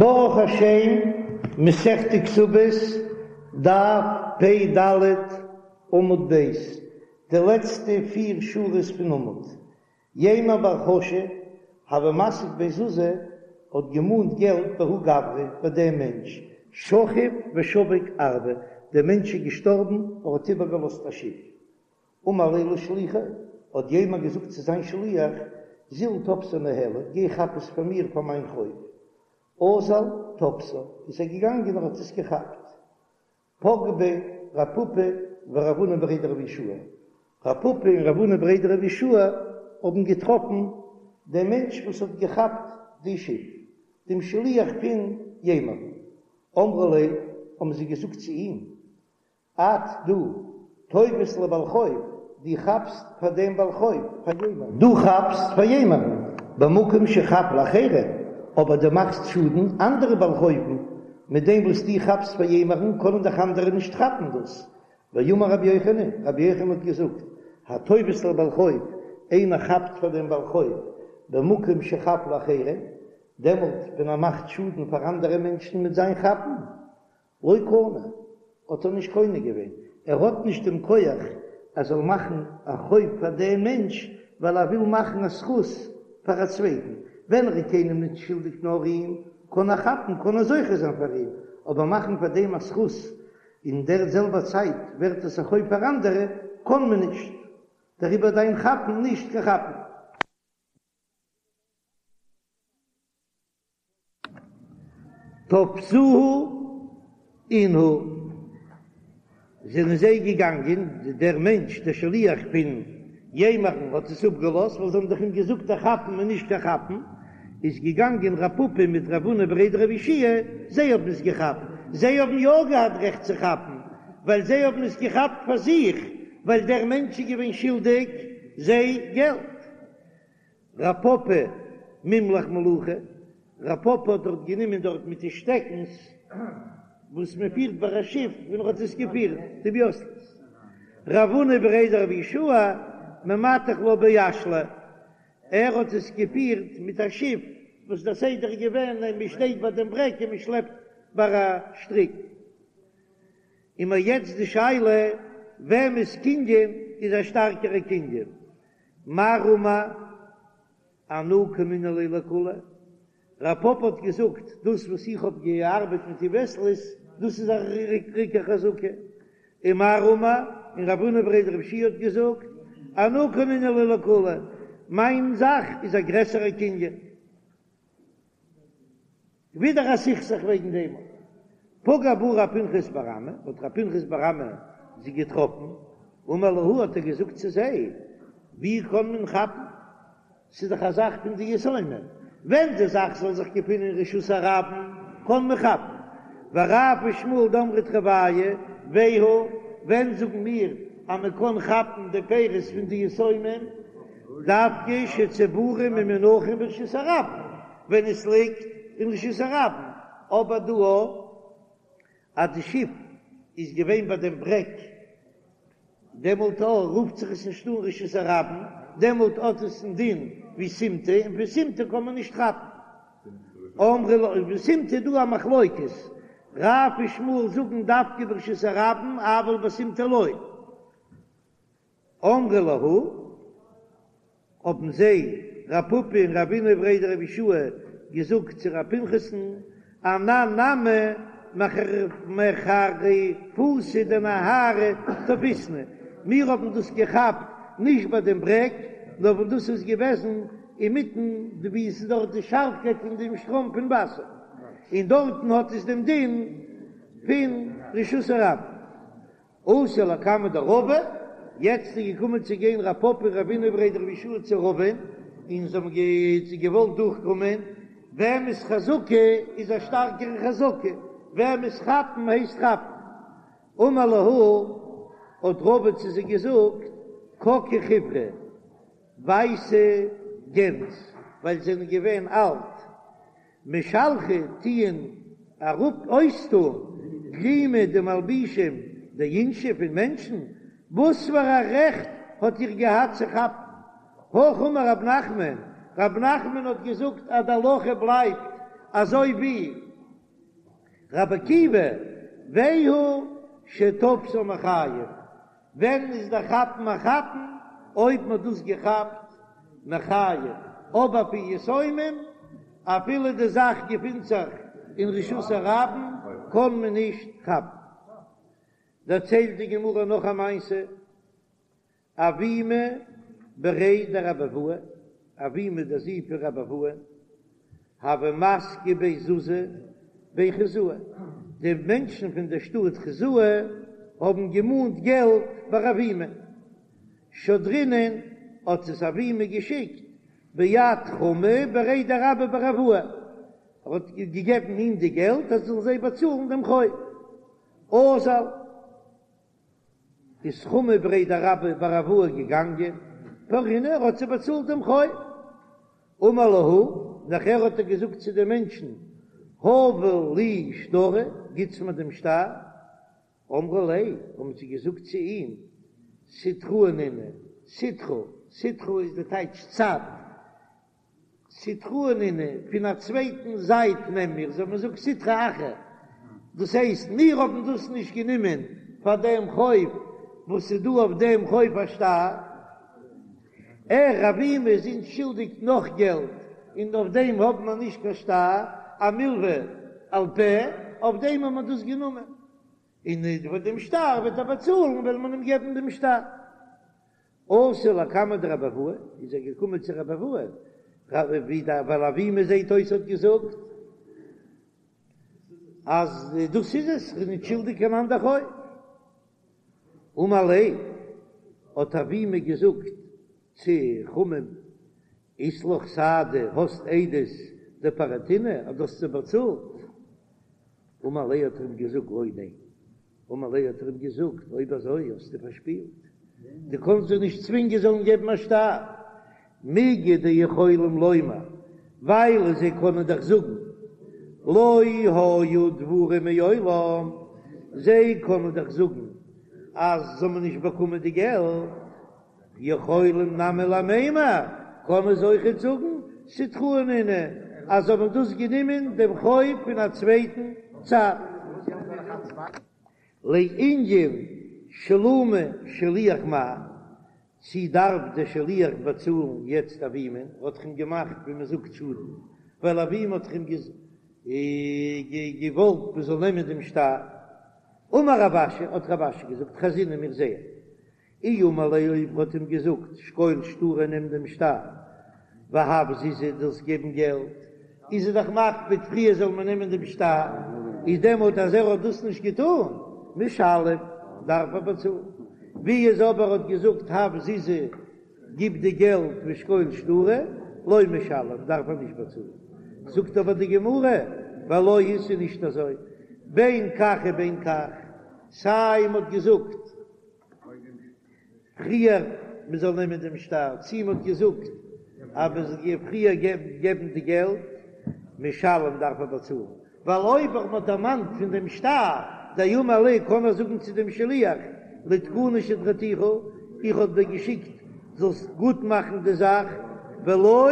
ברוך השם, מסכת כתובות, דף פ ד, עמוד ב', די לעצטע פיר שורות פון עמוד. יימר בר חשא, הוה מסיק בי זוזי, האט געמאנט געלט בההוא גברא, ביי דעם מענטש, שכיב ושביק ארבא, דער מענטש איז געשטארבן, ער האט איבערגעלאזט א שיף. אמר ליה לשליחיה, האט יימר געזאגט צו זיין שליח, זיל תפסה ניהלי, גיי כאפ עס פאר מיר פאר מיין חוב. אזל תפסה, איז ער געגאנגען און האט עס געכאפט. פגעו ביה רב פפא ורב הונא בריה דרב יהושע, רב פפא און רב הונא בריה דרב יהושע האבן געטראפן דעם מענטש וואס האט געכאפט די שיף, דעם שליח פון יימר. אמרו ליה, האבן זיי געזאגט צו אים, את דו תופס לבעל חוב, דו כאפסט פאר דעם בעל חוב, פאר יימר'ן. דו כאפסט פאר יימר'ן, במקום שחב לאחרים, אבער דו מאכסט שאדן אנדערע בעל חוב'ן, מיט דעם וואס דו כאפסט פאר יימר'ן קענען דאך אנדערע נישט כאפן דאס. ואמר רבי יוחנן, רבי יוחנן האט געזאגט, התופס לבעל חוב, איינער כאפט פאר דעם בעל חוב, במקום שחב לאחרים, דעמאלט ווען ער מאכט שאדן פאר אנדערע מענטשן מיט זיין כאפן, לא קנה, האט ער נישט קונה געווען, ער האט נישט דעם כח ער זאל מאכן א חוב פאר דעם מענטש ווייל ער וויל מאכן א זכות פאר א צווייטן, ווען ער איז קיינעם נישט שולדיג נאר אים, קען ער כאפן, קען ער זוכה זיין פאר אים, אבער מאכן פאר דעם א זכות אין דער זעלבער צייט ווערט עס א חוב פאר אנדערע, קען מען נישט, דעריבער דיין כאפן נישט קיין כאפן. תפסוהו אינהו, זענען זיי געגאנגען, דער מענטש דער שליח פון יימר'ן האט עס אפגעלאזט, ווייל זיי האבן דאך אים געזאגט אז כאפן איז נישט קיין כאפן, איז געגאנגען רב פפא מיט רב הונא בריה דרב יהושע זיי האבן עס געכאפט, זיי האבן יא געהאט רעכט צו כאפן, ווייל זיי האבן עס געכאפט פאר זיך, ווייל דער מענטש איז געווען שולדיג זיי געלט. רב פפא מימלח מלוחי, רב פפא האט דארט גענומען דארט מיט די שטעקנס וואס מען פירט ביי א שיף ווען ער האט עס געפירט די וויאסלעס, רב הונא בריה דרב יהושע ממתח לה באשלא, ער האט עס געפירט מיט א שיף וואס דער סדר איז געווען אז מען שטייט ביי דעם ברעג און מען שלעפט ביי א שטריק. און מיר יעצט די שאלה וועמענס קנין איז א שטארקערע קנין, מר אמר אנא קנינא ליה לכוליה, רב פפא האט געזאגט, דאס וואס איך האב געארבעט מיט די וועסלעס, דאס איז א ריכטיגע חזקה, און מר אמר, און רב הונא בריה דרב יהושע האט געזאגט, אנא קנינא ליה לכוליה, מיין זאך איז א גרעסערע קנין. ווידער א סכסוך וועגן דעם. פגע בהו רב פנחס בר אמי, האט רב פנחס בר אמי זיי געטראפן, אמר להו האט ער געזאגט צו זיי, ווי קען מען כאפן, ס'איז דאך א זאך פון די יתומים, ווען די זאך זאל זיך געפינען אין רשות הרבים קען מען כאפן, ורב ושמואל דאמרי תרוייהו, והוא, ווען זאגן מיר אז מען קען כאפן די פירות פון די יתומים, דווקא שצבורים ומונחים ברשות הרבים, ווען עס ליגט אין רשות הרבים, אבער דא אז די שיף איז געווען ביי דעם ברעג, דעמאלט רופט זיך עס נישט אן רשות הרבים, דעמאלט האט עס א דין ווי סימטא, און פון סימטא קען מען נישט כאפן. אמרי לו, בסימטא איז דא א מחלוקת, רב ושמואל זאגן דווקא ברשות הרבים, אבל בסימטא לא. אמרי להו, האבן זיי, רב פפא און רב הונא בריה דרב יהושע געזאגט צו רב פנחס'ן, אנן נמי מחריפותא דנהרא תפיסנא, מיר האבן דאס געכאפט נישט ביי דעם ברעג, נאר ווען דאס איז געוועזן אינמיטן די ווי עס איז דארט די שארפקייט פון דעם שטראם פון וואסער, און דארטן האט עס דעם דין פון רשות הרבים. אתו לקמיה דרבא, יעצט איז געקומען צו גיין רב פפא און רב הונא בריה דרב יהושע צו רבא'ן, און זיי האבן געוואלט דורכקומען, וועמענס חזקה איז א שטארקערע חזקה, וועמענס כאפן הייסט כאפן. אמר להו, האט רבא צו זיי געזאגט, ככי חיורי, ווייסע גענז, ווייל זיי זענען געווען אלט, משלחי טוען אראפ אויסטאן גלימי די מלבישים דאינשי פון מענטשן, וואס פאר א רעכט האט איר געהאט צו כאפן? הכי אמר רב נחמן, רב נחמן האט געזאגט אז די הלכה בלייבט אזוי ווי. רבי עקיבא, והוא שתפסו מחיים, ווען איז דער כאפן א כאפן? אויב מ'האט דאס געכאפט מחיים, אבער פון יתומים, אפילו די זאך געפינט זיך אין רשות הרבים, קען מען נישט כאפן. דערציילט די גמרא נאך א מעשה, אבימי בריה דרבי אבהו, אבימי דער זון פון רבי אבהו, הוה מסקי ביה זוזי בי חוזאי, די מענטשן פון דער שטאט חוזאי האבן געמאנט געלט ביי אבימי, שדרינהו האט עס אבימי געשיקט ביד חמא בריה דרבה בר אבוה, ער האט געגעבן אים די געלט אז ער זאל זיי באצאלן דעם חוב, אזל. איז חמא בריה דרבה בר אבוה געגאנגען, פרעינהו ער האט זיי באצאלט דעם חוב. אמר להו, נאכער האט ער געזאגט צו די מענטשן, הבו לי שטרא, גיטס מיר דעם שטר. אמרו ליה, האבן זיי געזאגט צו אים, סיטראי נינהו, סיטרא, סיטרא איז די טייטש צד, סיטראי נינהו, פון א צווייטן זייט נעם מיר, אזוי ווי מ'זאגט סיטרא אחרא, דאס הייסט מיר האבן דאס נישט גענומען פאר דעם חוב וואס איז דא אויף דעם חוב א שטר, ער אבימי איז אונז שולדיג נאך געלט און אויף דעם האבן מיר נישט קיין שטר, א מלווה על פה, אויף דעם האבן מיר דאס גענומען, און פאר דעם שטר וועט ער באצאלן וועל מען אים געבן דעם שטר. אתא לקמיה דרבי אבהו, איז ער געקומען צו רבי אבהו, ווייל אבימי זעהט אויס האט געזאגט אז דאס איז עס, כ'בין נישט שולדיג קיין אנדער חוב. אמר ליה, האט אבימי געזאגט צו חמא'ן, אית לך סהדי, האסט עדות דפרעתינהו אז דו האסט זיי באצאלט? אמר ליה האט ער אים געזאגט לא ניין. אמר ליה האט ער אים געזאגט, אויב אזוי האסטו פארשפילט, דו קאנסט זיי נישט צווינגען זאלן געבן א שטר, מיגו דיכולים לומר, ווייל זיי קענען דאך זאגן, לא היו דברים מעולם, זיי קענען דאך זאגן אז זיי האבן נישט באקומען די געלט, יכולים נמי למימר, קענען זיי אויכעט זאגן, סיטראי נינהו, אז זיי האבן דאס גענומען דעם חוב פון א צווייטן צד. לענין שלומי שליח מהו, צי דארף דער שליח באצאלן יעצט אבימי, האט דאך אים געמאכט ווי מען זאגט שאדן, ווייל אבימי האט דאך אים געוואלט מען זאל נעמען דעם שטר. אמר רב אשי, האט רב אשי געזאגט, חזינן מיר זעען אי אמר ליה אויב האט אים געזאגט שקול שטרא נעם דעם שטר והב זוזי זאלסט געבן געלט איז ער דאך מקפיד פריער זאל מען נעמען דעם שטר איז דעמאלט אז ער האט דאס נישט געטאן משלם דארף ער באצאלן ווי איז אבער האט געזאגט הב זוזי גיב די געלט ושקול שטרא לא משלם דארף ער נישט באצאלן זאגט אבער די גמרא ולא היא ס'איז נישט אזוי בין כך ובין כך סיי מ'האט געזאגט פריער מען זאל נעמען דעם שטר, צי מען האט געזאגט אז מען זאל פריער געבן די געלט, משלם דארף ער באצאלן, ווייל אויב מען האט דערמאנט פון דעם שטר, דאמר ליה קען ער זאגן צו דעם שליח, לתקוני שדרתיך, איך האב דיר געשיקט זאלסט גוט מאכן די זאך, ולא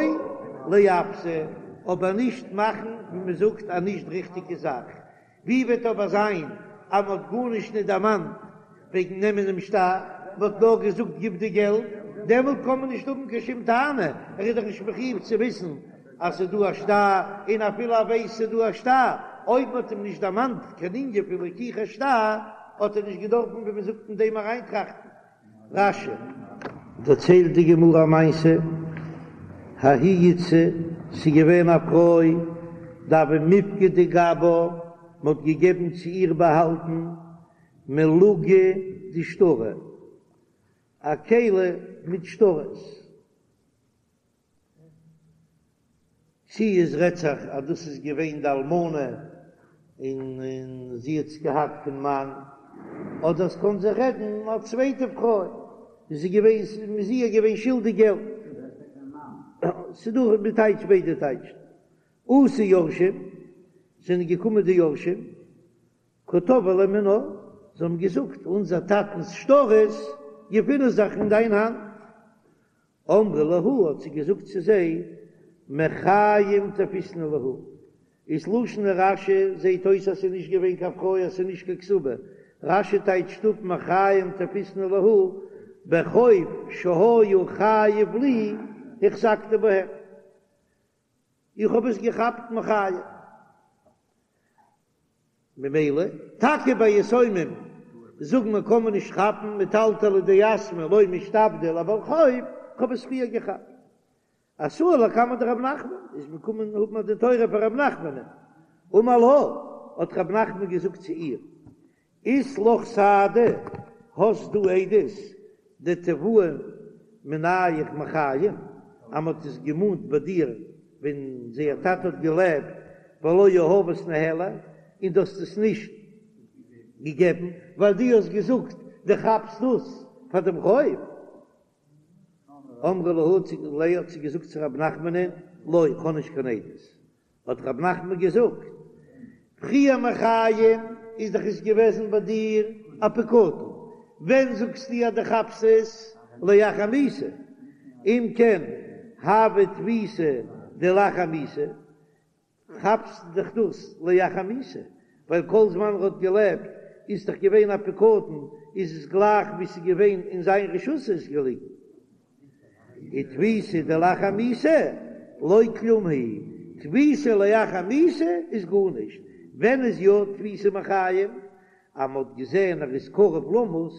לעוותא, אבער נישט מאכן ווי מען זאגט א נישט ריכטיגע זאך, ווי וועט אבער זיין אז מען האט גארנישט נישט דערמאנט וועגן נעמען דעם שטר, מען האט נאר געזאגט גיב די געלט, דעמאלט קען מען נישט האבן קיין שום טענה, ער איז דאך נישט מחיוב צו וויסן אז ס'איז דא א שטר, און אפילו ער ווייסט ס'איז דא א שטר, אויב מען האט אים נישט דערמאנט קיין ענין פון לקיחת שטר, האט ער נישט געדארפן ווי מען זאגט אין דעם אריינטראכטן. רש"י. דערציילט די גמרא א מעשה, ההיא איתתא, ס'איז געווען א פרוי, דהוה מיפקדא גבה, מ'האט געגעבן צו איר באהאלטן מלוגא דשטרי, א כלי מיט שטרות. צי עס רעדט זיך אז דאס איז געווען די אלמנה און זי האט עס געהאט פון מאן, אדער עס קען זיך רעדן א צווייטע פרוי און זי געווען מ'איז איר געווען שולדיג געלט. ס'דא די טייטש ביידע טייטשן. אתו יורשים, זענען געקומען די יורשים, קא תבעי ליה מינה, זיי האבן געזאגט אונזער טאטנ'ס שטרות געפינען זיך אין דיין האנט. אמרה להו האט זי געזאגט צו זיי, מחיים תפיסנא להו. איז לשון רש"י זעהט אויס אז ס'איז נישט געווען קיין פרוי אז ס'איז נישט קיין כתובה, רש"י טייטשט אפ מחיים תפיסנא להו בחוב שהיה חייב לי החזקתי בהם, איך האב עס געכאפט מחיים. ממילא טאקע ביי יתומים זאגן מיר קען מען נישט כאפן מטלטלי דיתמי לא משתעבדי לבעל חוב, כ'האב עס פריער געכאפט. אתאי לקמיה דרב נחמן, איז מען קומען האבן א דין תורה פאר רב נחמנ'ן, אמר לה, האט רב נחמן געזאגט צו איר, אית לך סהדי, האסט דו עדות דתבעוה מינייך מחיים, אז מען האט עס געמאנט ביי דיר ווען זייער טאטע האט געלעבט, ולא יהבת ניהליה, און דו האסט עס נישט געגעבן, ווייל דו האסט געזאגט דו כאפסט דאס פאר דעם חוב. אמרה להו ליה האט זי געזאגט צו רב נחמנ'ן, לא, איך האב נישט קיין עדות. האט רב נחמן געזאגט, פריער מחיים איז דאך עס געוועזן ביי דיר א פקדון, ווען זאגסטו אז דו כאפסט עס לאחר מיתה? אם כן הוה תפיסה דלאחר מיתה, כאפסט דאך דאס לאחר מיתה, ווייל כל זמן ער האט געלעבט איז דאך געווען א פקדון, איז עס גלייך ווי ס'איז געווען אין זיין רשות איז געליגן. ותפיסה דלאחר מיתה לא כלום היא, תפיסה לאחר מיתה איז גארנישט, ווען איז יא תפיסה מחיים? אז מ'האט געזען ער איז קרוב למות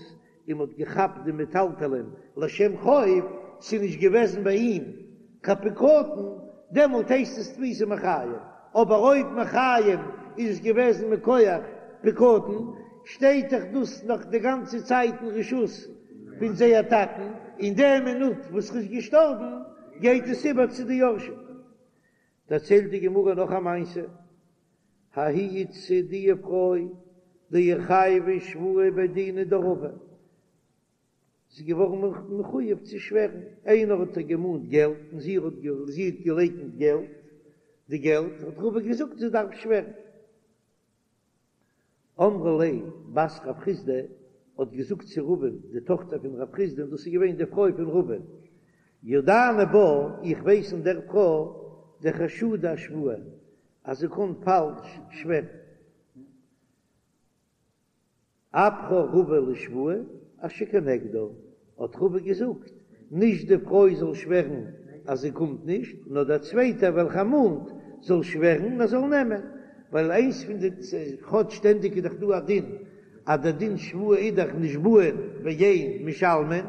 און מ'האט געכאפט די מטלטלין לשם חוב, ס'איז נישט געוועזן ביי אים קיין פקדון, דעמאלט הייסט עס תפיסה מחיים, אבער אויב מחיים איז עס געוועזן מכח פקדון, שטייט דאך דאס נאך די גאנצע צייט אין רשות פון זייער טאטן, אין די מינוט וואס ר'איז געשטארבן גייט עס איבער צו די יורשים. דערציילט די גמרא נאך א מעשה, ההיא איתתא די פרוי דאיחייבא שבועה בי דינא דרבא, זי איז געווארן מחויב צו שווערן, איינער האט איר געמאנט געלט און זי האט זי האט געלייקנט געלט, די געלט, האט רבא געזאגט זי דארף שווערן. אמרה ליה בת רב חסדא האט געזאגט צו רבא'ן, די טאכטער פון רב חסדא, און דאס איז געווען די פרוי פון רבא'ן, ידענא בה, איך ווייס אין דער פרוי, דחשודה אשבועה, אז זי קען פאלש שווערן. אפכה רבא לשבועה אשר כנגדה, האט רבא געזאגט, נישט די פרוי זאל שווערן אז זי קומט נישט, נאר דער צווייטער וועלכער מאנט זאל שווערן און ער זאל נעמען, ווייל איינס פון די, כאטש שטענדיג איז דאך דא א דין אז דער דין שבועה איז דאך נשבעין ואין משלמין,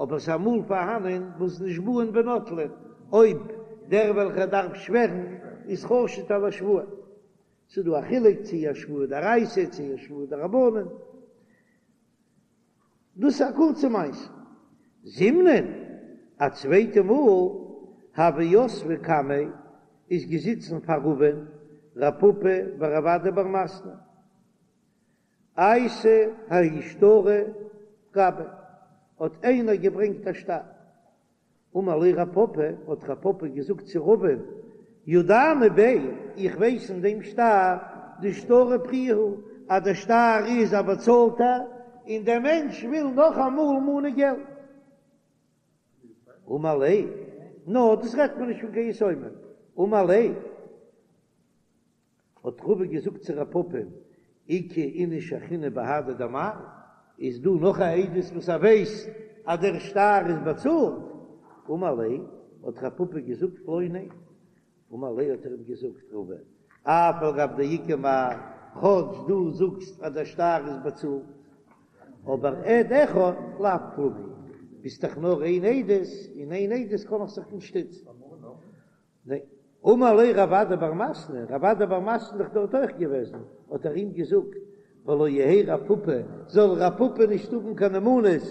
אבער ס'איז אמאל פארהאנען וואס נשבעין ונוטלין, אויב דער וועלכער דארף שווערן איז חשוד על השבועה. ס'איז דא א חילוק צו א שבועה דאורייתא צו א שבועה דרבנן. דאס איז א קורצע מעשה. זימנין, א צווייטע מאל, הוו יתבי קמיה איז געזיצן פאר רבא'ן רב פפא ורב אדא בר מתנה. אייתי ההוא שטרא גביה, האט איינער געברענגט א שטר. אמר ליה רב פפא, האט רב פפא געזאגט צו רבא'ן, ידענא ביה, איך ווייס אין דעם שטר, דשטרא פריעא הוא, אז דער שטר איז א באצאלטער, און דער מענטש וויל נאך אמאל מאנען געלט. אמר ליה, נא, דאס רעדט מען נישט פון קיין יתומים. אמר ליה. האט רבא געזאגט צו רב פפא, איכא איניש אחרינא בהדי דמר, איז דא נאך א עדות וואס ער ווייסט אז דער שטר איז באצאלט? אמר ליה, האט רב פפא געזאגט לא, ניין. אמר ליה האט ער אים געזאגט, רבא, אף על גב דאיכא מר, כאטש דו זאגסט אז דער שטר איז באצאלט, אבער עד אחד לאו כלום הוא, ביסט דאך נאר איין עדות, און איין עדות קען איך זיך נישט שטיצן. אמר ליה רב אדא בר מתנה, רב אדא בר מתנה איז דאך דארט אויך געוועזן, האט ער אים געזאגט, ולא יהא רב פפא, זאל רב פפא נישט האבן קיין נאמנות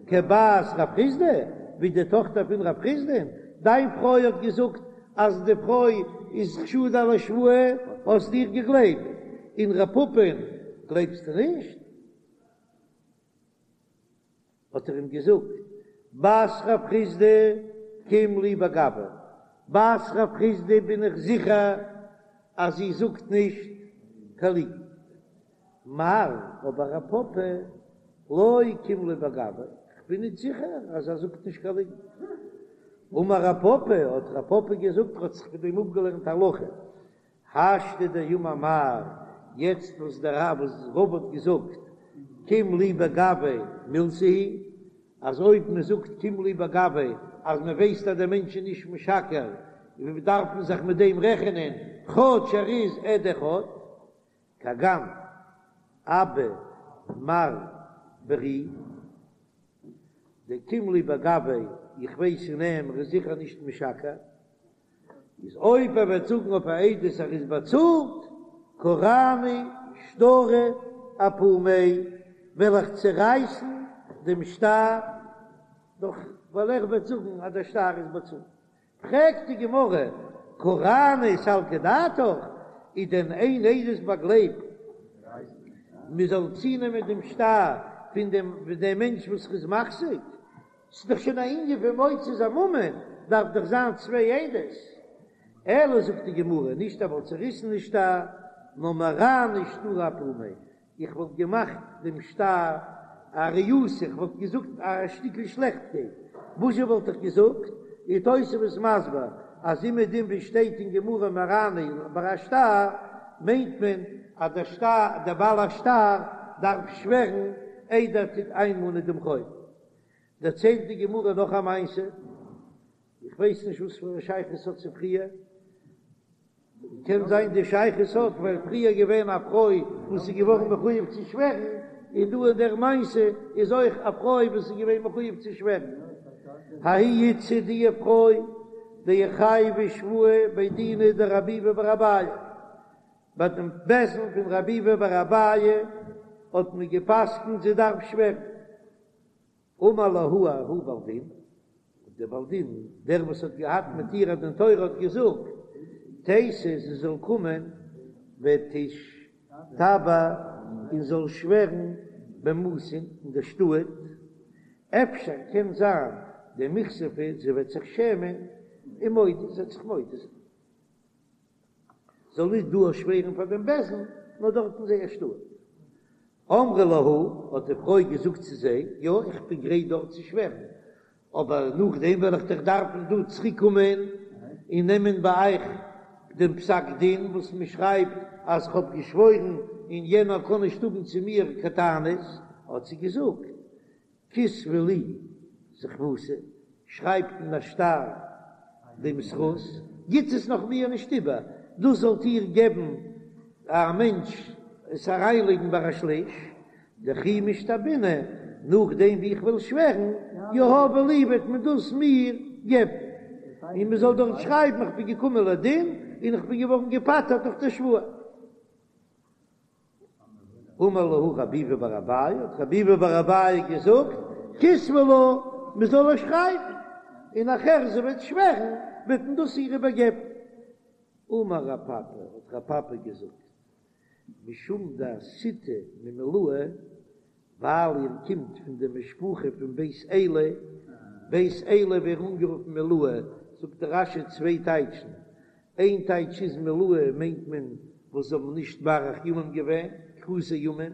כבת רב חסדא, ווי די טאכטער פון רב חסדא, דיין פרוי האט געזאגט אז די פרוי איז חשודה על השבועה, האסט איר געגלייבט, און רב פפא'ן גלייבסטו נישט? האט ער אים געזאגט, בת רב חסדא קים לי בגווה, בת רב חסדא בין איך זיכער אז זי זאגט נישט קיין ליגנט, מר אבער רב פפא לא קים לי בגווה, כ'בין נישט זיכער אז ער זאגט נישט קיין ליגנט. אמר רב פפא, האט רב פפא געזאגט, ער האט זיך פון דעם אפגעלערנט הלכה. השתא דאמר מר, יעצט וואס דער רב וואס רבא האט געזאגט קים ליה בגויה מילתא היא, אז אויב מען זאגט קים ליה בגויה אז מען ווייסט אז דער מענטש איז נישט משקר, דארף מען זיך מיט דעם רעכענען כאטש ער איז עד אחד. כגון אבא מר ברי דקים ליה בגויה, איך ווייס אין אים ער איז זיכער נישט משקר, איז אויב ער וועט זאגן אויף א עדות ער איז באצאלט, קרענא שטרא אפומיה, וועל איך צערייסן דעם שטר, דאך ווייל ער וועט זאגן אז דער שטר איז באצאלט. פרעגט די גמרא, קרענא סלקא דעתך, איז דען איין עדות באגלייבט מען זאל צונעמען דעם שטר פון דעם דעם מענטש וואס איז מחזיק? ס'איז דאך שוין א ענין פון מוציא זיין ממון, דארף דאך זיין צוויי עדות. אלא זאגט די גמרא, נישט ער וואלט צוריסן די שטר, נאר מרענא שטרא אפומיה, איך וואלט געמאכט דעם שטר א ריעותא, איך וואלט געזאגט א שטיקל שלעכטקייט, וואזשע וואלט איך געזאגט? איז תוספות מסביר אז אומעדום ווי שטייט אין גמרא מרענא ביי א שטר, מיינט מען אז דער שטר, דער בעל השטר דארף שווערן איידער ער טוט איינמאנען דעם חוב. דערציילט די גמרא נאך א מעשה, איך ווייס נישט וואס פאר א שייכות ס'האט צו פריער, קען זיין די שייכות האט ווייל פריער געווען א פרוי וואס איז געווארן מחויב צו שווערן, און דא אין דער מעשה איז אויך א פרוי וואס איז געווען מחויב צו שווערן. ההיא איתתא די פרוי דאיחייבא שבועה בי דינא דרב ביבי בר אביי, ביי דעם בית דין פון רב ביבי בר אביי האט מען געפסקנט זי דארף שווערן. אמר להו ההוא בעל דין, דער בעל דין, דער וואס האט געהאט מיט איר א דין תורה האט געזאגט, תיתי זי זאל קומען ותשתבע און זאל שווערן במתין אין דער שטאט, אפשר קען זיין דמיכספא זי וועט זיך שעמען ומודיא זי וועט זיך מודה זיין. זאל נישט דא שווערן פאר דעם בית דין, נאר דארט אין זייער שטאט. אמרה להו, האט די פרוי געזאגט צו זיי, יא, איך בין גרייט דארט צו שווערן, אבער נאכדעם וועל איך דאך דארפן דא צוריק קומען און נעמען ביי אייך דעם פסק דין וואס מען שרייבט אז איך האב געשוואוירן און יענער קען נישט האבן צו מיר קיין טענות, האט זי געזאגט, כתבו לי זכוותא, שרייבט אין א שטר דעם זכות, גיט עס נאך מיר נישט איבער, דאס זאלט איר געבן א מענטש עס אריינלייגן ביי א שליש, דכי משתבענא, נאכדעם ווי איך וועל שווערן, יהבו לי וועט מען דאס מיר געבן, און מען זאל דארט שרייבן איך בין געקומען לדין און איך בין געווארן געפטר'ט דורך די שבועה. אמר להו רב ביבי בר אביי, האט רב ביבי בר אביי געזאגט, כתבו לה, מען זאל איר שרייבן, און נאכער זי וועט שווערן, וועט מען דאס איר איבערגעבן. אמר רב פפא, האט רב פפא געזאגט, משום דאתיתו ממילאי, ווייל איר קומט פון די משפחה פון בית עלי, בית עלי ווערן אנגערופן מילאי, זאגט דער רש"י צוויי טייטשן, איין טייטש איז מילאי מיינט מען וואס זיי האבן נישט מאריך ימים געווען, כרותי ימים,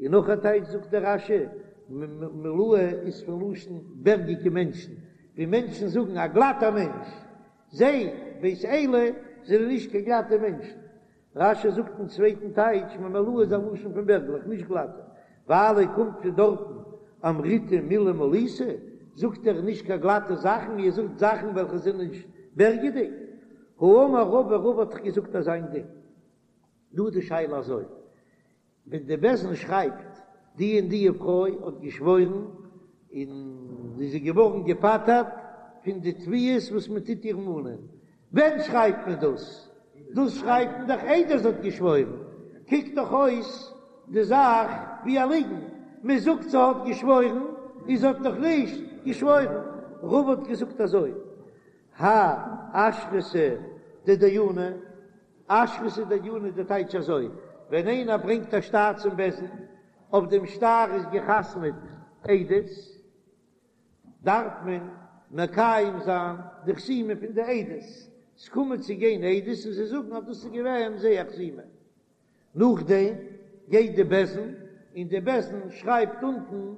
און נאך א טייטש זאגט דער רש"י, מילאי איז פון לשון בערגיגע מענטשן, ווי מענטשן זאגן א גלאטער מענטש, זיי, בית עלי, זענען נישט קיין גלאטע מענטשן. רש"י זאגט אין צווייטן טייטש, ממילאי איז א לשון פון בערגלעך, נישט גלאטע, ווייל איר קומט פון דארטן, אמריתו מילי מליתא, זאגט איר נישט קיין גלאטע זאכן, איר זאגט זאכן וועלכע זענען נישט בערגעדיג. האמר רבא, רבא האט דאך געזאגט אזא איין דין. דא איז די שאלה אזוי, ווען די בית דין שרייבט די און די פרוי האט געשוואוירן און זי איז געווארן געפטר'ט פון די תביעות וואס מען טוט איר מאנען, ווען שרייבט מען דאס? דאס שרייבט מען דאך איידער זי האט געשוואוירן, קוקט דאך אויס די זאך ווי א ליגן, מען זאגט זי האט געשוואוירן און זי האט נאך נישט געשוואוירן. רבא האט געזאגט אזוי, האי אשרתא דדייני, אשרתא דדייני די טייטש אזוי, ווען איינער ברענגט א שטר צום בית דין, אויף דעם שטר איז געחתמעט עדות, דארף מען מקיים זיין די חתימה פון די עדות, ס'קומען צו גיין עדות און זיי זאגן אז דאס איז געווען זייער חתימה, נאכדעם גייט די בית דין און די בית דין שרייבט אונטן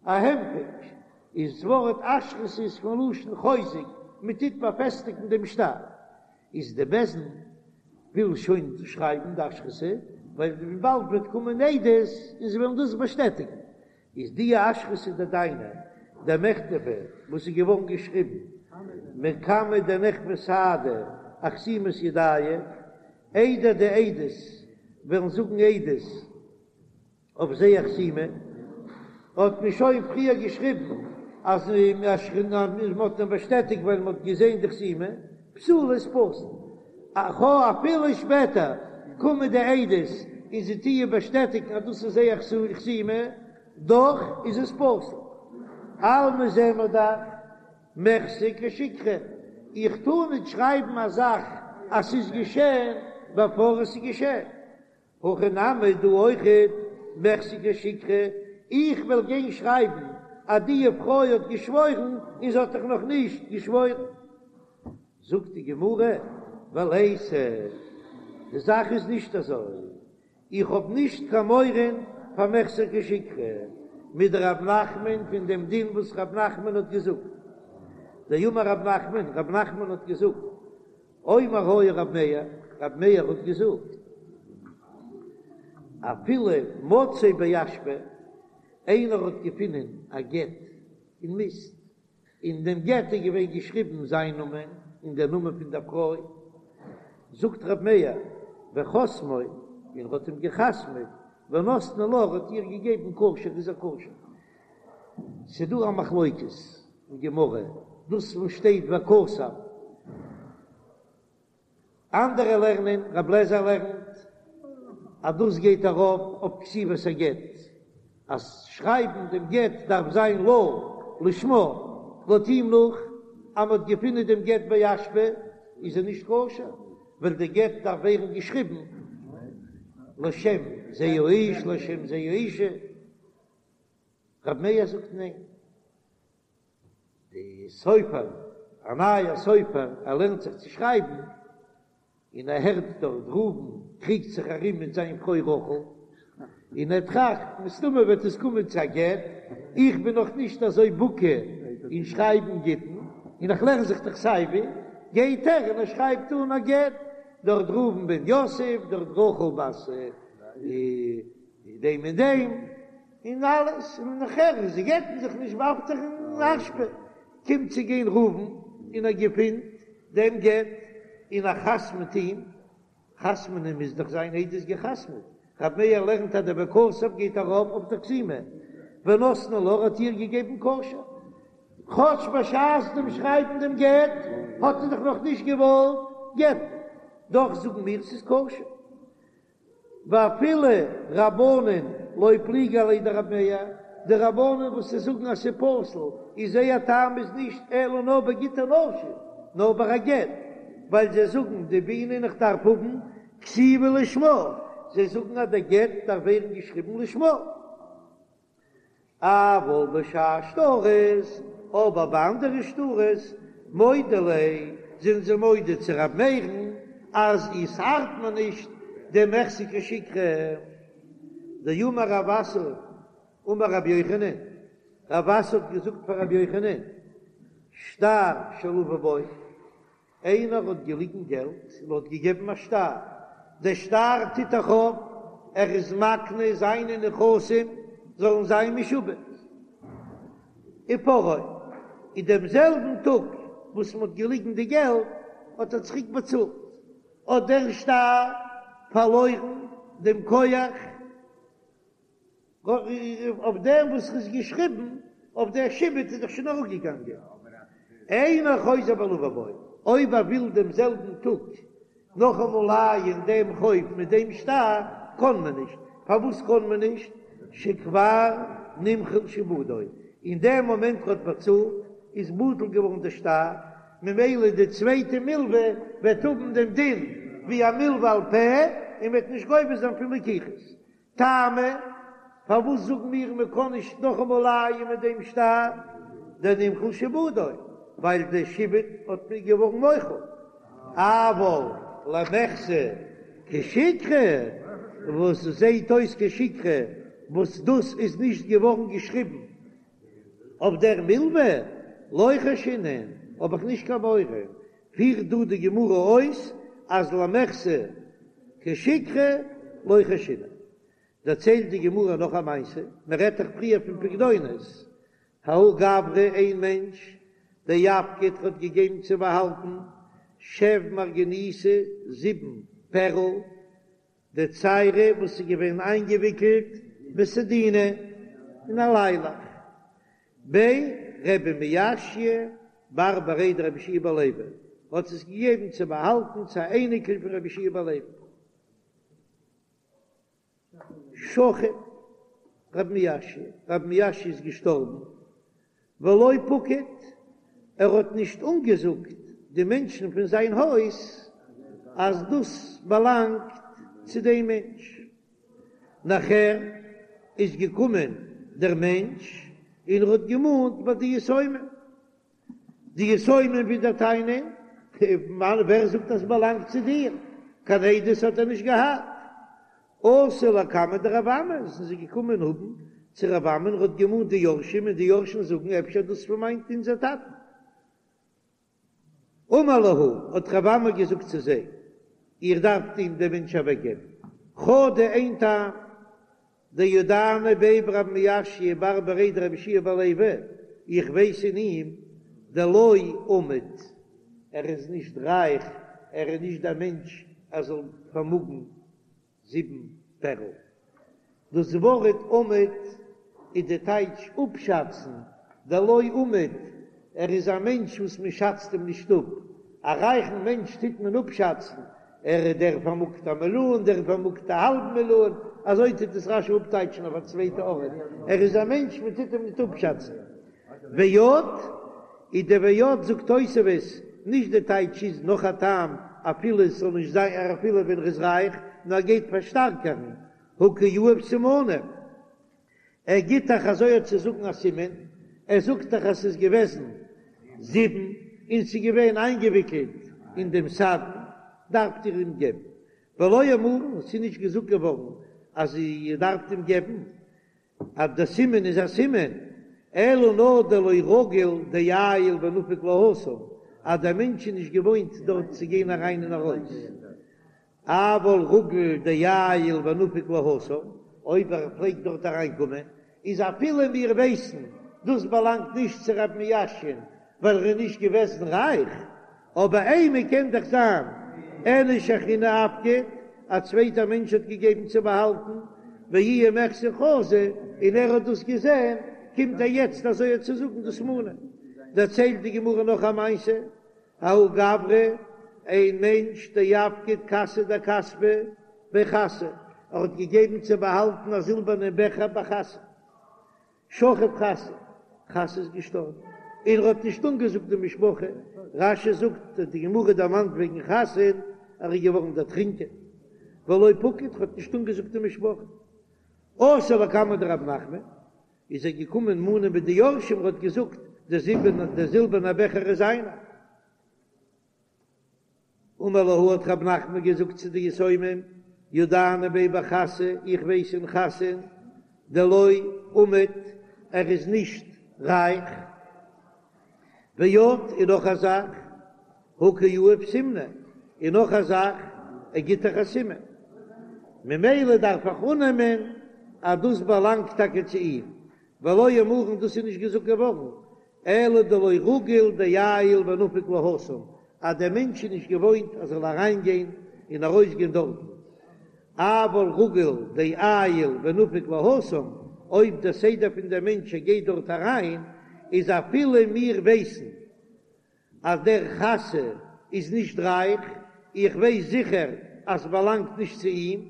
א הנפק, איז ס'ווארט אשרתא איז פון לשון חוזק, מען טוט באפעסטיגן דעם שטר, איז די בית דין. וויל שוין שרייבן די אשרתא, ווייל באלד וועט קומען עדות און זיי וועלן דאס באשטעטיגן, איז די אשרתא דדיינא דמיכתבא וואס איז געווארן געשריבן מקמי דנכפי סהדי אחתימת ידייהו, איידער די עדות וועלן זאגן עדות אויף זייער חתימה, האט מען שוין פריער געשריבן אז מען האט אים באשטעטיגט ווייל מען האט געזען די חתימה, פסולה איז פסול. אפילו שפעטער קומען די עדות און זיי טוען באשטעטיגן אז דאס איז זייער חתימה, דאך איז עס פסול. אלמא זעען מיר דאך מיחזי כשיקרא, איך טאר ניט שרייבן א זאך אז ס'איז געשען בעפאר עס איז געשען. הכא נמי דא אויכעט מיחזי כשיקרא, איך וועל גיין שרייבן אז די פרוי האט געשוואוירן און זי האט דאך נאך נישט געשוואוירן. זאגט די גמרא, וליתא, די זאך איז נישט אזוי, איך האב נישט קיין מורא פאר מיחזי כשיקרא, מדרב נחמן פון דעם דין וואס רב נחמן האט געזאגט, דאמר רב נחמן, רב נחמן האט געזאגט, אומר היה רב מאיר, רב מאיר האט געזאגט, אפילו מצאו באשפה, איינער האט געפונען א גט אין מיסט, אין דעם גט איז געווען געשריבן זיין נאמען און דער נאמען פון דער פרוי, זאגט רב מאיר, וחתמו, און ער האט אים געחתמעט, ונתנו לה, ער האט איר געגעבן כשר, איז ער כשר. ס'דא א מחלוקת אין גמרא, דאס וואס שטייט וכתב, אנדערע לערנען, רב לעזער לערנט אז דאס גייט ארויף אויף כתיבת הגט, אז שרייבן דעם גט דארף זיין לה לשמה, לויט אים נאך אז מ'האט געפונען דעם גט באשפה איז ער נישט כשר, ווייל די גט דארף ווערן געשריבן לשם זה האיש לשם זה האישה. רב מאיר זאגט ניין, די סופר, א נייער סופר, ער לערנט זיך צו שרייבן, און ער הערט דארט ראובן קריגט זיך ארום מיט זיין פרוי רחל, און ער טראכט, מסתמא וועט עס קומען צו א גט, איך בין נאך נישט אזוי בקי אין שרייבן גיטין, און איך לערן זיך דאך סייווי, גייט ער און ער שרייבט אן א גט, דארט ראובן בן יוסף, דארט רחל בת דעם און דעם. און אלעס, און נאכער זיי גט'ן זיך נישט ווארפט ער אין אשפה, קומט צו גיין ראובן און ער געפינט דעם גט און ער חתמ'ט אים, חתמ'נען מוז דאך זיין עדות געחתמ'ט, רב מאיר לערנט אז דער וכתב גייט ארויף אויף די חתימה, ונתנו לה האט איר געגעבן כשר, כאטש בשעת דעם שרייבן דעם גט האט ער דאך נאך נישט געוואלט גט'ן, דאך זאגן מיר ס'איז כשר. ואפילו רבנן לא פליגי עליה דרב מאיר, די רבנן וואס זיי זאגן אז ס'איז פסול, איז זייער טעם איז נישט אלא נאר בגיטי נשים, נאר ביי א גט, ווייל זיי זאגן דבעינן איך דארף האבן כתיבה לשמה, זיי זאגן אז דער גט דארף ווערן געשריבן לשמה. אבל בשאר שטרות, אבער ביי אנדערע שטרות, מודו ליה, זענען זיי מודה צו ר' מאיר'ן אז עס ארט מיר נישט דער מיחזי כשיקרא. דאמר רב אסי אמר רבי יוחנן, רב אסי האט געזאגט פאר רבי יוחנן, שטר שלוה בו, איינער האט געליגן געלט און האט געגעבן א שטר, דער שטר טוט דאך אויף, ער איז מקנה זיינע נכסים זאלן זיין משועבד, ופרעו, אין דעם זעלבן טאג וואס מען האט געליגן די געלט האט ער צוריק באצאלט, האט דער שטר פארלוירן דעם כח. אויף דעם וואס איז געשריבן אויף דער שעבוד איז דאך שוין אראפגעגאנגען, אינו חוזר ולוה בו, אויב ער וויל דעם זעלבן טאג נאכאמאל לייען דעם חוב מיט דעם שטר, קען מען נישט, פארוואס קען מען נישט? שכבר נמחל שעבודו, אין דעם מאמענט ער האט באצאלט איז בטל געווארן דער שטר, ממילא די צווייטע מלווה וועט האבן דעם דין ווי א מלווה על פה און וועט נישט גובה זיין פון לקיחות. טעמא, פארוואס זאגן מיר מען קען נישט נאכאמאל לייען מיט דעם שטר דנמחל שעבודו, ווייל די שעבוד האט מיר געווארן מוחל, אבל למיחזי כשיקרא, וואס זעהט אויס כשיקרא, וואס דאס איז נישט געווארן געשריבן אויף דער מלווה, לא חיישינן, האב איך נישט קיין מורא, פירט דא די גמרא אויס אז למיחזי. כשיקרא לא חיישינן. דערציילט די גמרא נאך א מעשה, מען רעדט דאך פריער פון פקדונות, ההוא גברא איין מענטש דאפקיד האט געגעבן צו באהאלטן שב מרגניתא זיבן פערל דציירי וואס איז געווען איינגעוויקלט בסדינא אין א ליילעך בי רבי מיאשא בר בריה דרבי יהושע בן לוי האט עס געגעבן צו באהאלטן צו א אייניקל פון רבי יהושע בן לוי. שכיב רב מיאשא, רב מיאשא איז געשטארבן, ולא פקיד, ער האט נישט אנגעזאגט די מענטשן פון זיין הויז אז דאס באלאנגט צו דעם מענטש. נאכער איז געקומען דער מענטש און ער האט געמאנט ביי די יתומים. די יתומים ווידער טענה'ן, ווער זאגט אז ס'באלאנגט צו דיר? קיין עדות האט ער נישט געהאט. אתו לקמיה דרב אמי, זענען זיי געקומען האבן צו רב אמי, ער האט געמאנט די יורשים, און די יורשים זאגן אפשר דאס פון מיין אונזער טאטן. אמר להו, האט רב אמי געזאגט צו זיי, איר דארפט אים דעם מענטש אוועקגעבן, חדא איין טעם, דידענא ביה ברב מיאשא בר בריה דרבי יהושע בן לוי, איך ווייס אין אים דלא אמיד, ער איז נישט רייך, ער איז נישט דער מענטש ער זאל פארמאגן זיבן פערל. דאס ווארט אמיד איז די טייטש אפשאצן, דלא אמיד, ער איז א מענטש וואס מען שאצט אים נישט אפ, א רייכן מענטש טוט מען אפשאצן, ער איז דער פארמאגט א מיליאן, דער פארמאגט א האלב מיליאן, אזוי טוט עס רש"י אפטייטשן אויף א צווייטע ארט, ער איז א מענטש מען טוט אים ניט אפשאצן. ועוד, איז די ועוד זאגט תוספות, נישט די טייטש איז נאך א טעם אפילו עס זאל נישט זיין אפילו ווען ער איז רייך, נאר גייט פארשטארקערן, הא קא יהיב סימנא. ער גיט דאך אזוי צו זאגן א סימן, ער זאגט דאך אז ס'איז געוועזן זיבן און ס'איז געווען איינגעוויקלט אין דעם סדין, דארפט איר אים געבן. ולא אמרן, ס'איז נישט געזאגט געווארן אז איר דארפט אים געבן, אז דער סימן איז א סימן, אלא נאר דלא רגיל דעייל ונפיק להתם, אז דער מענטש איז נישט געוואוינט דארט צו גיין אריין און ארויס. אבל רגיל דעייל ונפיק להתם, אויב ער פלעגט דארט אריינקומען, איז אפילו מיר ווייסן דאס באלאנגט נישט צו רב מיאשע'ן ווייל ער איז נישט געוועזן רייך, אבער אימא קען דאך זיין איניש אחרינא אפקיד, א צווייטער מענטש האט געגעבן צו באהאלטן, ואיהו מיחזי חזא, און ער האט דאס געזען, קומט ער יעצט אזוי צו זאגן דאס מאנען. דערציילט די גמרא נאך א מעשה, ההוא גברא, איין מענטש דאפקיד כסא דכספא בי חסא, ער האט געגעבן צו באהאלטן א זילבערנע בעכער ביי חסא, שכיב חסא, חסא איז געשטארבן, און ער האט נישט אנגעזאגט די משפחה, רש"י זאגט אז די גמרא דערמאנט וועגן חסא'ן, ער איז געווארן דערטרינקען, ולא פקיד, ער האט נישט אנגעזאגט די משפחה. אתא לקמיה דרב נחמן, איז ער געקומען מאנען ביי די יורשים, ער האט געזאגט, דער זילבערנער, דער זילבערנער בעכער איז זיינער. אמר להו האט רב נחמן געזאגט צו די יתומים, ידענא ביה בחסא, איך ווייס אין חסא'ן, דלא אמיד, ער איז נישט רייך. ועוד, און נאך א זאך, הא קא יהיב סימנא, און נאך א זאך, ער גיט דאך א סימן, ממילא דארף איך אננעמען אז דאס באלאנגט טאקע צו אים, ולא אמרן דאס איז נישט געזאגט געווארן, אלא דלא רגיל דעייל ונפיק להתם, אז דער מענטש איז נישט געוואוינט אז ער זאל אריינגיין און ארויסגיין דארטן, אבל רגיל דעייל ונפיק להתם, אויב דער סדר פון דער מענטש ער גייט דארט אריין, איז אפילו מיר ווייסן אז דער חסא איז נישט רייך, איך ווייס זיכער אז ס'באלאנגט נישט צו אים,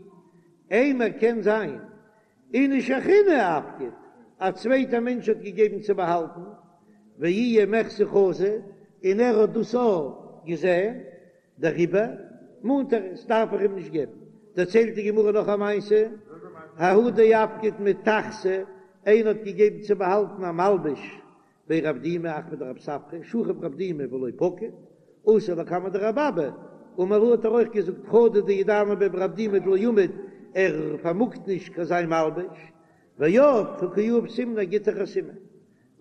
אימא קען זיין איניש אחרינא אפקיד, א צווייטער מענטש האט געגעבן צו באהאלטן, ואיהו מיחזי חזא, און ער האט דאס אויך געזען, דעריבער מאנט ער עס, דארף איך אים נישט געבן. דערציילט די גמרא נאך א מעשה, ההוא דאפקיד מטכסא, איינער האט געגעבן צו באהאלטן א מלבוש בי רב דימי אחוה דרב ספרא, שכיב רב דימי ולא פקיד, אתא לקמיה דרבי אבא, אמר להו האט ער אויך געזאגט חדא דידענא ביה ברב דימי דלא אמיד, ער פארמאגט נישט קיין זיין מלבוש, ועוד הא קא יהיב סימנא גיט דאך א סימן,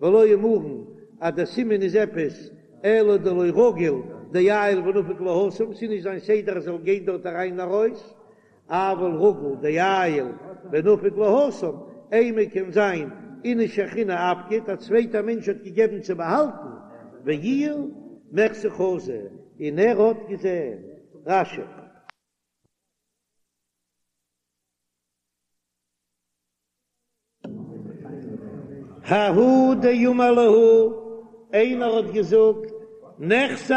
ולא אמרן אז דער סימן איז עפעס אלא דלא רגיל דעייל ונפיק להתם, ס'איז נישט זיין סדר ער זאל גיין דארט אריין און ארויס. אבל רגיל דעייל ונפיק להתם, אימא קען זיין איניש אחרינא אפקיד, א צווייטער מענטש האט געגעבן צו באהאלטן, ואיהו מיחזא חזא, און ער האט געזען. רש"י. ההוא דאמר להו, איינער האט געזאגט, נכסי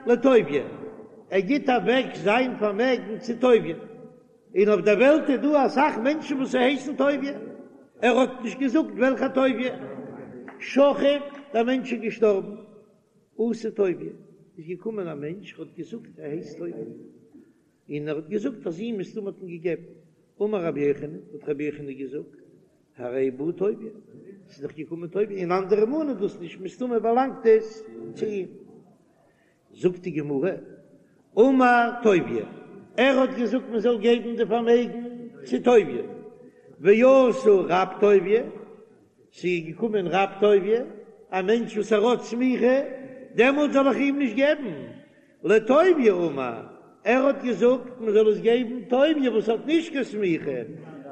לטוביה, ער גיט אוועק זיין פארמעגן צו טוביה, און אויף דער וועלט איז דא אסאך מענטשן וואס הייסן טוביה, ער האט נישט געזאגט וועלכע טוביה, שכיב, דער מענטש איז געשטארבן, אתא טוביה, איז געקומען א מענטש האט געזאגט ער הייסט טוביה. און ער האט געזאגט אז אים מסתמא האט מען געגעבן. אמר רבי יוחנן, האט רבי יוחנן געזאגט, הרי בא טוביה, ס'איז דאך געקומען טוביה, און אנדערע מאנען דאס נישט, מסתמא באלאנגט עס צו אים. זאגט די גמרא, אמר טוביה, ער האט געזאגט מען זאל געבן די פארמעגן צו טוביה, ואתא רב טוביה, ס'איז געקומען רב טוביה, א מענטש וואס ער האט סמיכה, דעמאלט זאל איך אים נישט געבן, לטוביה אמר, ער האט געזאגט מען זאל עס געבן טוביה וואס האט נישט קיין סמיכה,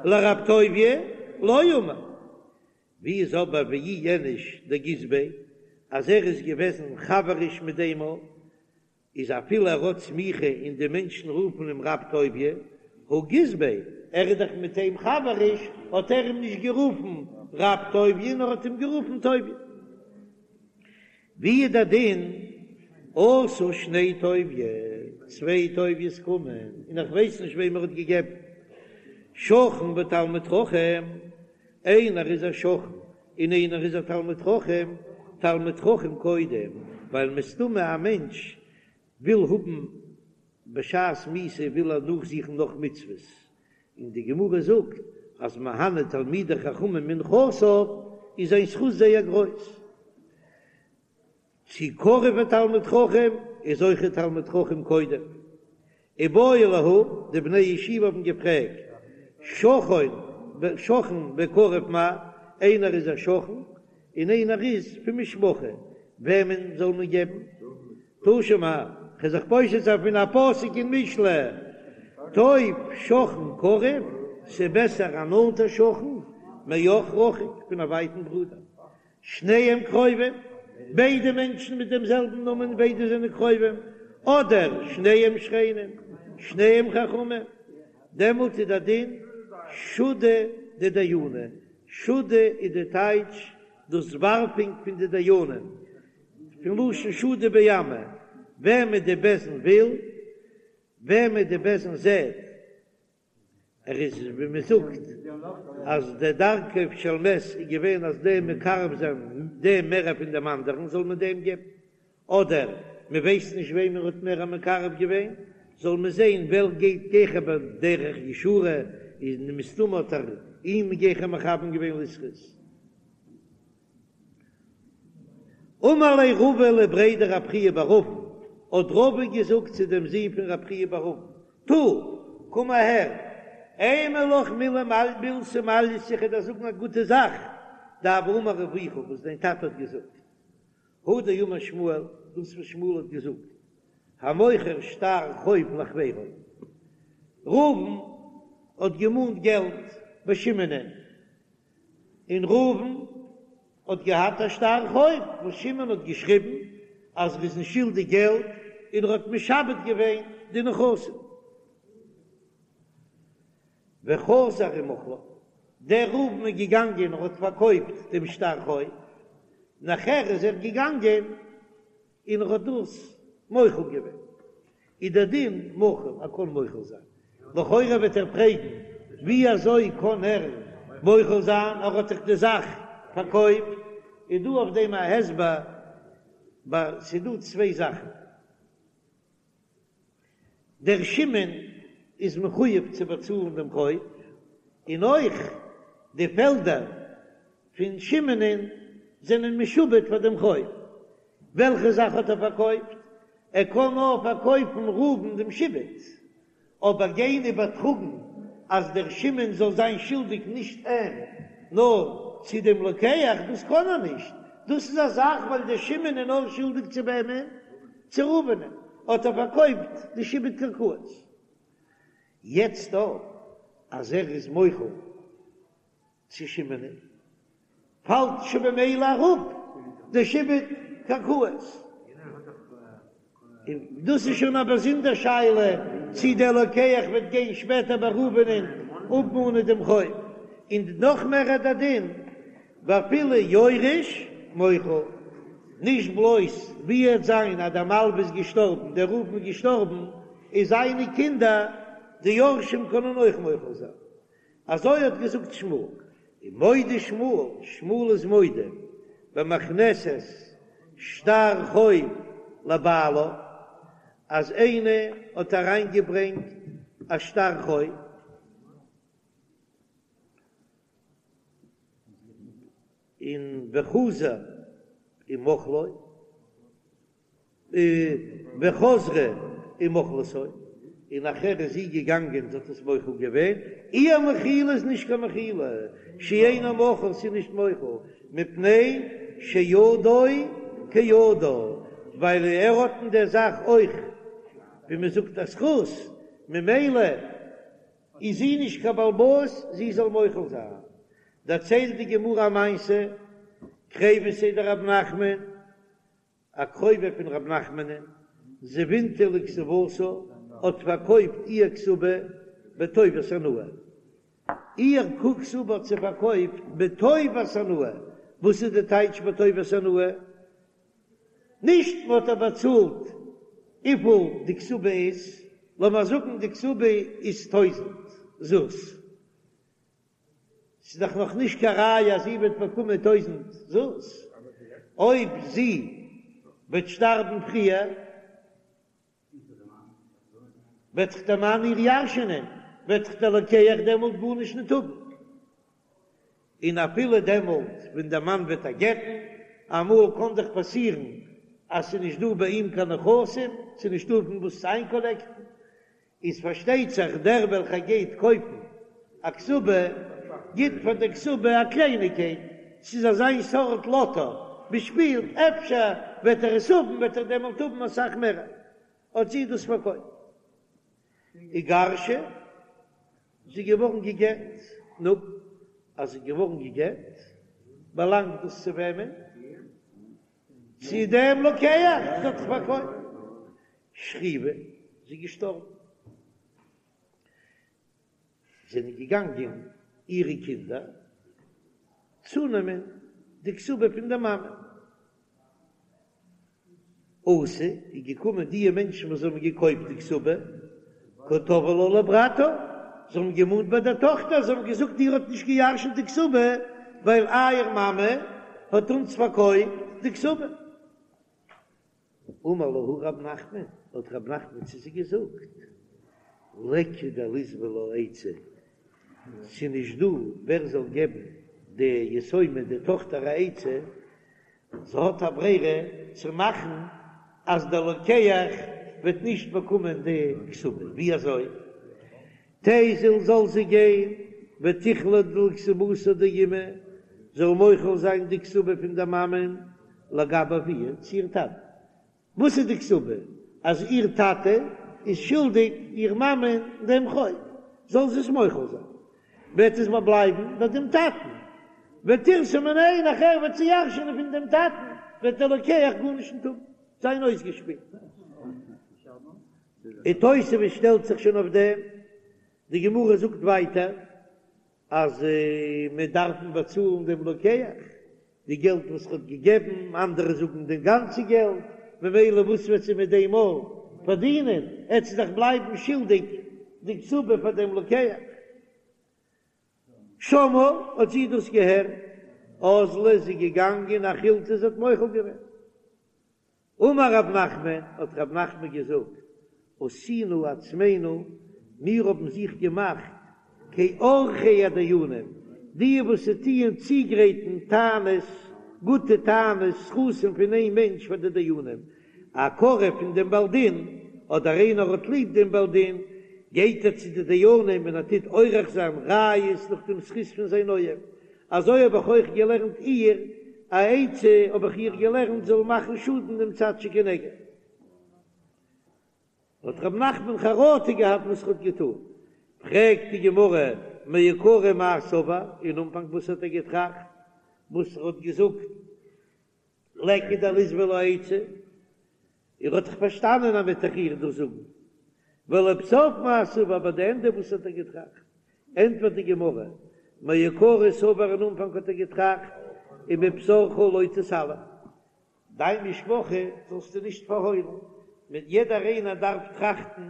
לרב טוביה לא אמר. ווי איז אבער ואי איניש דגיס ביה אז ער איז געוועזן חבריש מיט דעם א איז אפילו ער האט סמיכה און די מענטשן רופן אים רב טוביה, הא גיס ביה, ער איז דאך מיט אים חבריש, האט ער אים נישט גערופן רב טוביה נאר האט אים גערופן טוביה. ווי איז דער דין אתו שני טוביה, צוויי טוביה'ס קומען און איך ווייס נישט וועם ער האט געגעבן, שכן ותלמיד חכם, איינער איז א שכן און איינער איז א תלמיד חכם, תלמיד חכם קודם, ווייל מסתמא א מענטש וויל האבן בשעת מיתה וויל ער נאכזוכן נאך מצוות, און די גמרא זאגט אז מהנה תלמידי חכמים מנכסיו איז זיין זכות זייער גרויס. צו קרוב ותלמיד חכם איז אויך תלמיד חכם קודם. איבעיא להו, די בני ישיבה האבן געפרעגט, שכן שכן וקרוב מהו, איינער איז א שכן און איינער איז פון משפחה, וועמען זאל מען געבן? תא שמע, כ'וועל זיך פושט זיין פון א פסוק אין משלי, טוב שכן קרוב, ס'בעסער א נאנטער שכן, מאח רחוק, פון א ווייטן ברודער. שניהם קרובים, ביידע מענטשן מיט דעם זעלבן נאמען, ביידע זענען קרובים, אדער שניהם שכנים, שניהם חכמים, דעמאלט איז דער דין שודא דדייני, שודא איז די טייטש דאס ווארפונג פון די דיינים, פון לשון שדו בימא, וועמען די בית דין וויל, וועמען די בית דין זעט, ער איז ווי מען זאגט אז די דרכו של מת איז געווען אז דעם מקרב זיין דעם מער פון דעם אנדערן זאל מען דעם געבן, אדער מען ווייסט נישט וועם ער האט מער מקרב געווען, זאל מען זען ווער גייט גיכער בדרך ישרה, איז מסתמא האט ער אים גיכער מכוון געווען לזכות. אמר ליה רבא לבריה דרב חייא בר אבין, האט רבא געזאגט צו דעם זון פון רב חייא בר אבין, תא, קום אהער, אימא לך מילי מילתא מעלייתא, איך וועל דיר זאגן א גוטע זאך, דהוה אמר אבוך, וואס דיין טאטע האט געזאגט, הא דאמר שמואל, דאס וואס שמואל האט געזאגט, המוכר שטר חוב לחבירו, ראובן האט געמאנט געלט ביי שמעונ'ען, און ראובן האט געהאט א שטר חוב וואס שמעון האט געשריבן אז ער איז אים שולדיג געלט און ער האט משעבד געווען די נכסים. וחזר ומחלו, דער ראובן איז געגאנגען און האט פארקויפט דעם שטר חוב, נאכער איז ער געגאנגען און ער האט דאס מוחל געווען, איז דער דין מחול, ער קען מוחל זיין. לכאורה וועט ער פרעגן, ווי אזוי קען ער מוחל זיין, ער האט דאך די זאך פארקויפט. איז דא אויף דעם א הסבר, ס'איז דא צוויי זאכן. דער שמעון איז מחויב צו באצאלן דעם חוב, און אויך די פעלדער פון שמעונ'ען זענען משועבד פאר דעם חוב. וועלכע זאך האט ער פארקויפט? ער קען נאר פארקויפן ראובן דעם שעבוד, אבער גיין איבערטראגן אז דער שמעון זאל זיין שולדיג נישט אים נאר צו דעם לוקח, דאס קען ער נישט, דאס איז א זאך ווייל דער שמעון איז נאר שולדיג צו וועמען? צו ראובנ'ען, האט ער פארקויפט די שעבוד קרקעות. יעצט דא אז ער איז מוחל צו שמעונ'ען, פאלט שוין במילא אראפ די שעבוד קרקעות. און דאס איז שוין א באזונדער שאלה צי דער לוקח וועט גיין שפעטער ביי ראובנ'ען אפמאנען דעם חוב, און נאך מער איז דער דין ואפילו יורש מוחל, נישט בלויז ווי עט זיין אז דער מלווה איז געשטארבן, דער ראובן איז געשטארבן, איז זיינע קינדער די יורשים קענען אויך מוחל זיין. אזוי האט געזאגט שמואל, און מודה שמואל, שמואל איז מודה, במכנסת שטר חוב לבעלה, אז איינער האט אריינגעברענגט א שטר חוב, און וחזר ומחלו, וחזרה ומחלתו, און נאכער איז זי געגאנגען זי האט עס מוחל געווען, איר מחילה איז נישט קיין מחילה, שאינו מחול ס'איז נישט מוחל, מפני שידו כידה, ווייל ער האט אין דער זאך אויך ווי מען זאגט א זכות, ממילא איז זי נישט קיין בעל הבית זי זאל מוחל זיין. דערציילט די גמרא א מעשה, קריבתיה דרב נחמן, א קרובה פון רב נחמנ'ן, זבינתה לכתובתה, האט פארקויפט איר כתובה בטובת הנאה. איר כתובה האט זי פארקויפט בטובת הנאה. וואס איז די טייטש בטובת הנאה? נישט מען האט איר באצאלט וויפיל די כתובה איז, לאמיר זאגן די כתובה איז טויזענט זוז, ס'איז דאך נאך נישט קיין ראיה אז זי וועט באקומען טויזענט זוז, אויב זי וועט שטארבן פריער וועט דאך דער מאן איר ירש'ענען, וועט דאך דער לוקח דעמאלט גארנישט ניט האבן, און אפילו דעמאלט ווען דער מאן וועט איר גט'ן, אמאל קען דאך פאסירן אז ס'איז נישט דא ביי אים קיין נכסים, ס'איז נישטא פון וואס צו איינקאלעקטן, איז פארשטייט זיך דער וועלכער גייט קויפן א כתובה גיט פאר די כתובה א קלייניגקייט, ס'איז אזיין סארט לאטא, מ'שפילט אפשר וועט ער עס האבן וועט ער דעמאלט האבן אסאך מער, האט זי דאס פארקויפט. איגרשה, זי איז געווארן גע'גט, נו, אז זי איז געווארן גע'גט באלאנגט דאס צו וועמען? צו דעם לוקח, זי האט דאך פארקויפט. שכיבה, זי איז געשטארבן. זענען געגאנגען אירע קינדער צונעמען די כתובה פון דער מאמע. אתו, איז געקומען די מענטשן וואס האבן געקויפט די כתובה, קא תבעי לה לברתה, זיי האבן געמאנט ביי דער טאכטער, זיי האבן געזאגט איר האט נישט געירשנט די כתובה, ווייל אייער מאמע האט אונז פארקויפט די כתובה. אמר להו רב נחמן, האט רב נחמן צו זיי געזאגט, ליכא דליסבי לה עצה, ס'איז נישט דא ווער זאל געבן די יתומה די טאכטער א עצה, זי האט א ברירה צו מאכן אז דער לוקח וועט נישט באקומען די כתובה, ווי אזוי? תיזיל זאל זי גיין ותיחלה לכתובתה דאימא, זאל מוחל זיין די כתובה פון דער מאמען לגבי אבוה צו איר טאטן. וואס איז די כתובה? אז איר טאטע איז שולדיג איר מאמען דעם חוב, זאל זי עס מוחל זיין, וועט עס בלייבן ביי דעם טאטן, ותירתה מיניה, נאכער וועט זי ירש'ענען פון דעם טאטן, וועט דער לוקח גארנישט נישט האבן, זיין אויסגעשפילט. און תוספות שטעלט זיך שוין אויף דעם, די גמרא זאגט ווייטער אז מען דארף באצאלן דעם לוקח די געלט וואס ער האט געגעבן, אנדערע זאגן די גאנצע געלט, ממילא וואס וועט זי מיט דעם מאל פארדינען, עט זי דאך בלייבן שולדיג די כתובה פאר דעם לוקח. שמעה, האט זי דאס געהערט, אזלה איז זי געגאנגען אחילתה זי האט מוחל געווען. אמר רב נחמן, האט רב נחמן געזאגט, עשינו עצמינו, מיר האבן זיך געמאכט כעורכי הדיינים, די וואס טוען צוגרייטן טענות, גוטע טענות, זכותים פון איין מענטש פאר די דיינים, א קרוב פון דעם בעל דין, אדער איינער האט ליב דעם בעל דין, גייט ער צו די דיינים און ער טוט עורך זיין ראיות נאך דעם זכות פון זיין אוהב, אזוי האב איך אויך געלערנט איר א עצה, האב איך איר געלערנט זאל מאכן שאדן דעם צד שכנגד. האט רב נחמן חרטה געהאט וואס ער האט געטאן. פרעגט די גמרא, מעיקרא מאי סבר, אין אנפאנג וואס האט ער געטראכט? וואס ער האט געזאגט ליכא דליסבא לה עצה, ער האט דאך פארשטאנען אז מ'וועט דאך איר דאס זאגן, ולבסוף מאי סבר, ביי די ענדע וואס האט ער געטראכט? ענטפערט די גמרא, מעיקרא סבר אין אנפאנג האט ער געטראכט, ומבשרך לא תתעלם, דיין משפחה זאלסטו נישט פארהוילן, מיט יעדער איינער דארף טראכטן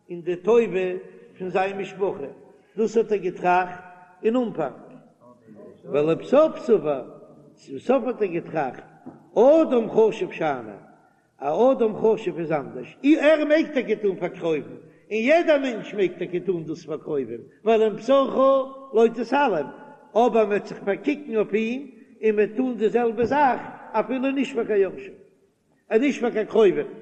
אין די טובה פון זיין משפחה, דאס האט ער געטראכט אין אנפאנג, ולבסוף סבר, צום סוף האט ער געטראכט, אדם חשוב שאני, א אדם חשוב איז אנדערש, ער מעג טאקע טון פאר קרובים, און יעדער מענטש מעג טאקע טון דאס פאר קרובים, ווייל ומבשרך לא תתעלם, אבער מען וועט זיך פארקוקן אויף אים און מען וועט טון די זעלבע זאך אפילו נישט פאר קיין יורשים, און נישט פאר קיין קרובים.